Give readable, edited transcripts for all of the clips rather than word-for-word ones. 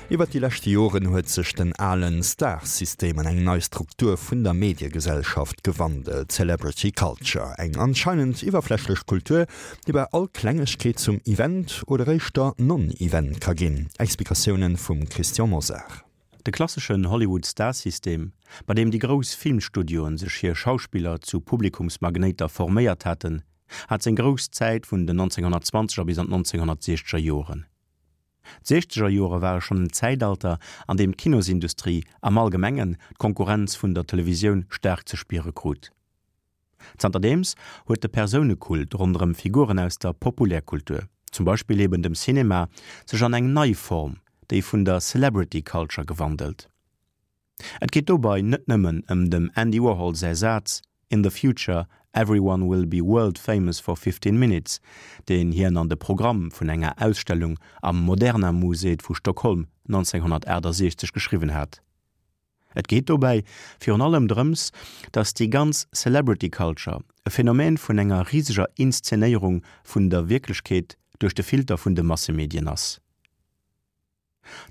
Iwwert déi leschte Joren huet sech den alen Star-System an eng nei Struktur vun der Mediegesellschaft gewandelt, Celebrity Culture. Eng anscheinend iwwerflächlech Kultur, déi bei all Klengegkeet zum Event oder éischter Non-Event ka ginn. Explikatiounen vum Christian Mosar. De klasseschen Hollywood-Star-System, bei deem déi grouss Filmstudioen sech hir Schauspiller zu Publikumsmagnéiter forméiert haten, hat seng grouss Zäit vun den 1920er bis an d'Nonzénhonnertsiechzeger Joren. D'Siechzeger Jore ware schonn en Zäitalter, an deem d'Kinosindustrie am Allgemengen d'Konkurrenz vun der Televisioun staark ze spiere krut. Zanterdeems huet de Persounekult ronderëm Figuren aus der Populärkultur, zum Beispill eben dem Cinema, sech an eng nei Form, déi vun der Celebrity Culture, gewandelt. Et geet dobei net nëmmen ëm dem Andy Warhol säi Saz In the future, everyone will be world famous for 15 minutes, deen hien an de Programm vun enger Ausstellung am Moderna Museet vu Stockholm 1968 geschriwwen hat. Et geet dobäi virun allem drëms, datt déi ganz Celebrity Culture e Phänomen vun enger riseger Inszenéierung vun der Wierklechkeet duerch de Filter vun de Massemedien ass.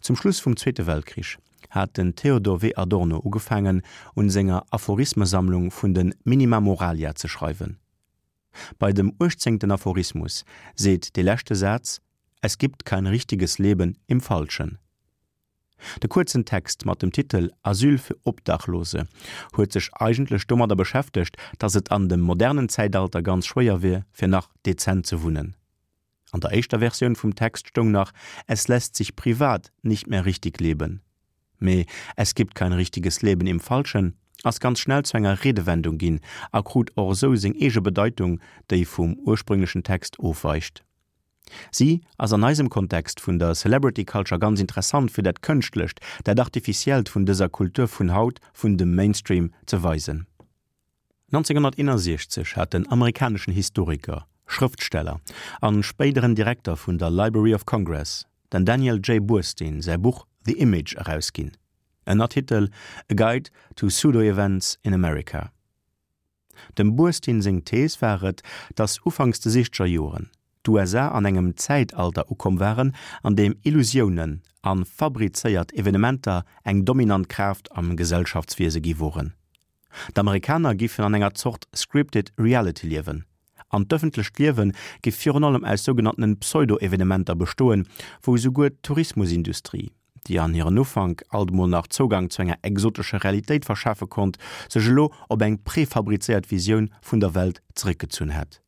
Zum Schluss vum Zweete Weltkrich hat den Theodor W. Adorno ugefaangen, un senger Aphorismesammlung vun de Minima Moralia ze schreiwen. Bei dem uechtzéngten Aphorismus seet dee leschte Saz, Es gibt kein richtiges Leben im Falschen. De kuerzen Text mat dem Titel Asyl für Obdachlose huet sech eigentlech domadder beschäftegt, datt et an dem modernen Zäitalter ganz schwéier wier, fir nach dezent ze wunnen. An der éischter Versioun vum Text stoung nach Es lässt sich privat nicht mehr richtig leben. Mee Es gibt kein richtiges Leben im Falschen ass ganz schnell zu enger Redewendung ginn a krut och esou seng eege Bedeitung, déi vum ursprünglechen Text ofweicht. Si ass an eisem Kontext vun der Celebrity Culture ganz interessant fir dat Kënschtlecht, dat Artificiellt vun dëser Kultur vun haut, vun dem Mainstream ze weisen. 1961 hat den amerikaneschen Historiker, Schrëftsteller an spéideren Direkter vun der Library of Congress, den Daniel J. Boorstin säi Buch The Image erausginn, Ënnertitel A Guide to Pseudo-Events in America. Dem Boorstin seng Thees war et, datt ufanks de siechzeger Joren d'USA an engem Zäitalter ukomm waren, an deem Illusiounen a fabrizéiert Evenementer eng dominant Kraaft am Gesellschaftswiese gi woren. D'Amerikaner giffen an enger Zort scripted reality liewen, an d'ëffentlecht Liewe giff virun allem aus sougenanntenen Pseudo-Evenementer bestoen, wou esouguer d'Tourismusindustrie, déi an hiren Ufank alt mol nach Zougang zu enger exotescher Realitéit verschafe konnt, sech elo op eng prefabrizéiert Visioun vun der Welt zeréckgezunn hätt.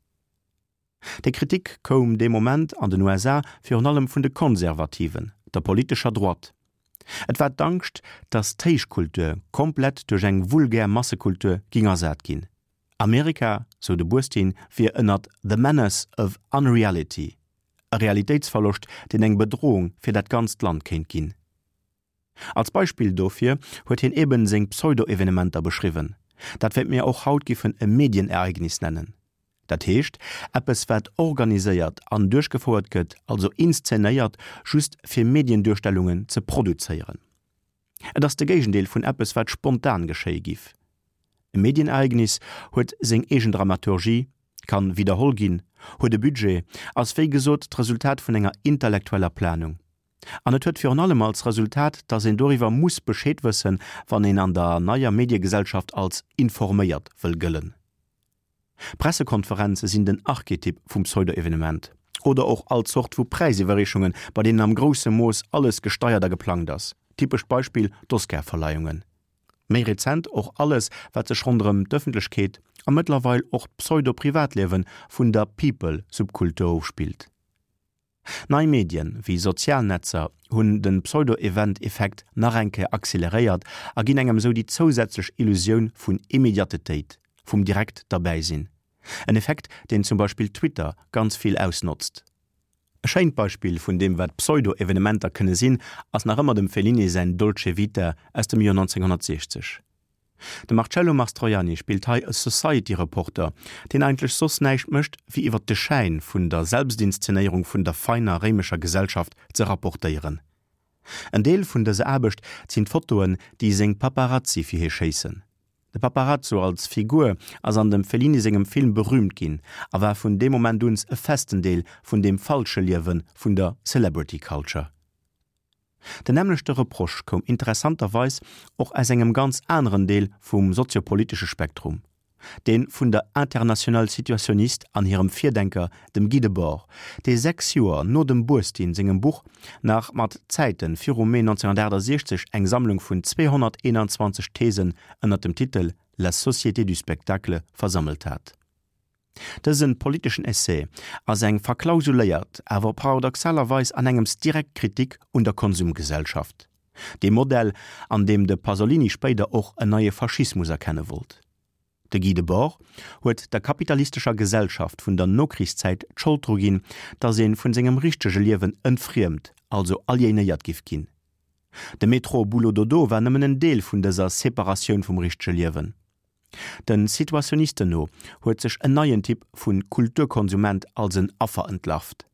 Déi Kritik koum dee Moment an den USA virun allem vun de Konservativen, der politescher Droite. Et war d'Angscht, datt d'Héichkultur komplett duerch eng vulgär Massekultur ging ersat ginn. Amerika, sou de Burstyn, wier ënnert the menace of unreality, e Realitéitsverloscht, deen eng Bedrohung fir dat ganzt Land kéint ginn. Als Beispill dofir huet hien eben seng Pseudo-Evenementer beschriwwen, dat wat mir och haut giffen e Medienereignis nennen. Dat heescht, eppes wat organiséiert an duerchgefouert gëtt, also inszenéiert, just fir Medienduerstellungen ze produzéieren. Et ass de Géigendeel vun eppes wat spontan geschéie giff. E Medienereignis huet seng eegen Dramaturgie, kann widderholl ginn, huet e Budget, ass wéi gesot d'Resultat vun enger intellektueller Planung. An et huet virun allem als Resultat, dass een doriwwer muss Bescheed wëssen, wann een an der neier Mediegesellschaft als informéiert wëll gëllen. Pressekonferenze sinn den Archetyp vum Pseudo-Evenement. Oder och all Zort vu Präisiwwerreechungen, bei deenen am grousse Mooss alles gesteiert a geplangt ass. Typescht Beispill, d'Oscar-Verleihungen. Méi rezent och alles, wat sech ronderëm d'Ëffentlechkeet a mëttlerweil och d'Pseudo-Privatliewe vun der People-Subkultur ofspillt. Nei Medien, wéi sozial Netzer, hunn de Pseudo-Event-Effekt nach eng Kéier acceleréiert a ginn engem esou déi zousätzlech Illusioun vun Immediatetéit, vum direkt derbäi sinn. En Effekt, deen zum Beispill Twitter ganz vill ausnotzt. E schéint Beispill vun deem wat Pseudo-Evenementer kënne sinn, ass nach ëmmer dem Fellini säin Dolce Vita aus dem Joer 1960. De Marcello Mastroianni spillt hei e Society-Reporter, deen eigentlech soss näischt mécht, wéi iwwer de Schäin vun der Selbstinszenéierung vun der feiner réimescher Gesellschaft ze rapportéieren. En Deel vun dëser Aarbecht sinn d'Fotoen, déi seng Paparazzi fir hie schéissen. De Paparazzo als Figur ass an dem Fellini sengem Film berüümt ginn a war vun deem Moment uns e festen Deel vun deem falsche Liewe vun der Celebrity Culture. Den nämmlechte Reproche koum interessanterweis och aus engem ganz aneren Deel vum soziopolitesche Spektrum, dee vun der Internationale Situationniste an hirem Virdenker, dem Guy Debord, dee 6 Joer no dem Burstyn sengem Buch nach mat Zäite virum Mee 1968 eng Sammlung vun 221 Thesen ënner dem Titel La société du spectacle versammelt hat. Dëse politeschen Essai ass eng verklausuléiert, awer paradoxalerweis an engems direkt Kritik un der Konsumgesellschaft, deem Modell, an deem de Pasolini spéider och en neie Faschismus erkenne wollt. De Guy Debord huet der kapitalistescher Gesellschaft vun der Nokrichszäit d'Schold dru ginn, datt ee vun sengem richtege Liewen entfriemt, also aliénéiert giff ginn. De Métro-Boulot-Dodo war nëmmen en Deel vun dëser Separatioun vum richtege Liewen. Den Situationisten no huet sech en neien Typ vu Kulturkonsument als en Affer entlarvt.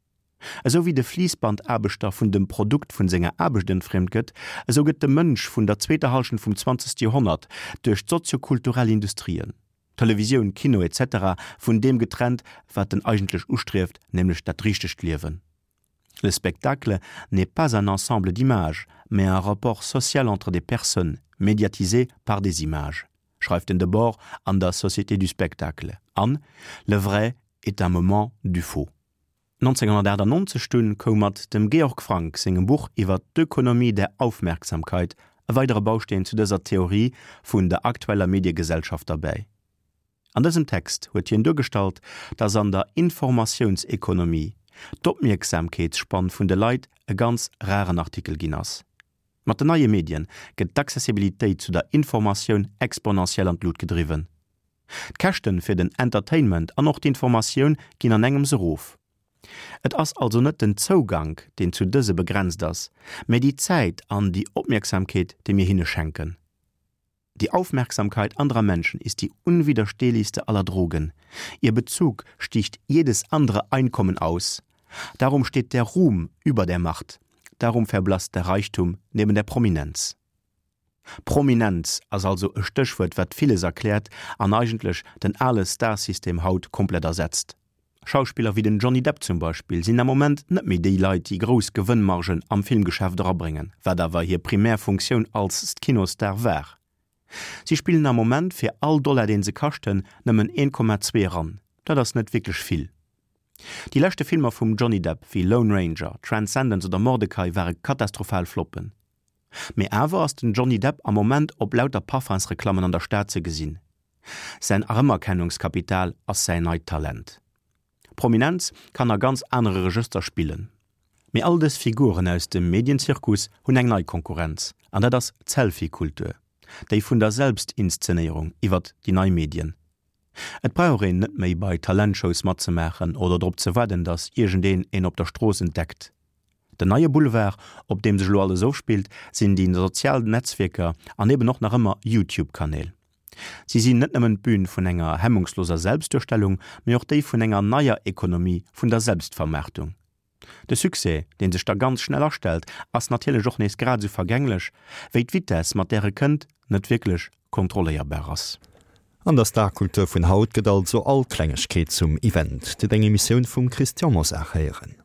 Esou wéi de Fliissbandaarbechter vun dem Produkt vun senger Aarbecht entfriemt gëtt, esou gëtt de Mënsch vun der zweeter Hallschent vum zwanzegste Joerhonnert duerch d'soziokulturell Industrien, Televisioun, Kino etc. Vun deem getrennt, wat en eigentlech ustrieft, nämlech dat richtegt Liewen. Le spectacle n'est pas un ensemble d'images, mais un rapport social entre des personnes, médiatisé par des images, schreift den Debord an der Société du spectacle an Le vrai est un moment du faux. 1998 dunn koum mat dem Georg Frank sengem Buch iwwer d'Ökonomie der Aufmerksamkeit e weidere Bausteen zu dëser Theorie vun der aktueller Mediegesellschaft derbäi. An dësem Text huet hien duergestallt, dass an der Informatiounsekonomie d'Opmierksamkeetsspann vun de Leit e ganz raren Artikel ginn ass. Mat den neie Medien gëtt d'Accessibilitéit zu der Informatioun exponentiell an d'Lut gedriwwen. D'Käschten fir den Entertainment an och d'Informatioun ginn an engems erof. Et ass also net den Zougank, deen zu dëse begrenzt ass, mä déi Zäit an déi Opmierksamkeet, déi mir hinne schenken. Die Aufmerksamkeit anderer Menschen ist die unwiderstehlichste aller Drogen. Ihr Bezug sticht jedes andere Einkommen aus. Darum steht der Ruhm über der Macht. Darum verblasst der Reichtum neben der Prominenz. Prominenz ass also e Stéchwuert, wat villes erkläert an eigentlech den ale Starsystem haut komplett ersetzt. Schauspiller wéi den Johnny Depp zum Beispill sinn am Moment net méi déi Leit, déi grouss Gewënnmargen am Filmgeschäft erabréngen, wat awer hir primär Funktioun als Kinostar war. Si spillen am Moment fir all Dollar deen se kaschten nëmmen 1,2 eran. Dat ass net wierklech vill. Déi leschte Filmer vum Johnny Depp wéi Lone Ranger, Transcendence oder Mortdecai ware katastrophal Floppen. Mee awer ass den Johnny Depp am Moment op lauter Parfumsreklammen an der Stad ze gesinn. Säin Erëmerkennungskapital ass säin neit Talent. Prominenz kann a ganz anere Regëster spillen. Mee all dës Figuren aus dem Medienzirkus hunn eng nei Konkurrenz, an dat ass d'Selfie-Kultur, déi vun der Selbstinszenéierung iwwert déi nei Medien. Et brauch een net méi bei Talentshows matzemaachen oder drop ze waarden, datt iergendeen een op der Strooss entdeckt. Den neie Boulevard, op deem sech elo alles ofspillt, sinn déi sozial Netzwierker an eben och nach ëmmer YouTube-Kanäl. Si sinn net nëmmen d'Bün vun enger hemmungsloser Selbstduerstellung, mee och déi vun enger neier Ekonomie vun der Selbstvermaartung. De Succès, dee sech da ganz schnell astellt, ass natierlech och nees grad esou vergänglech, wéi d'Vitess, mat där e kënnt, net wierklech kontrolléierbar ass. An der Starkultur vun haut gëtt also all Klengegkeet zum Event. Dir hutt eng Emissioun vum Christian Mosar héieren.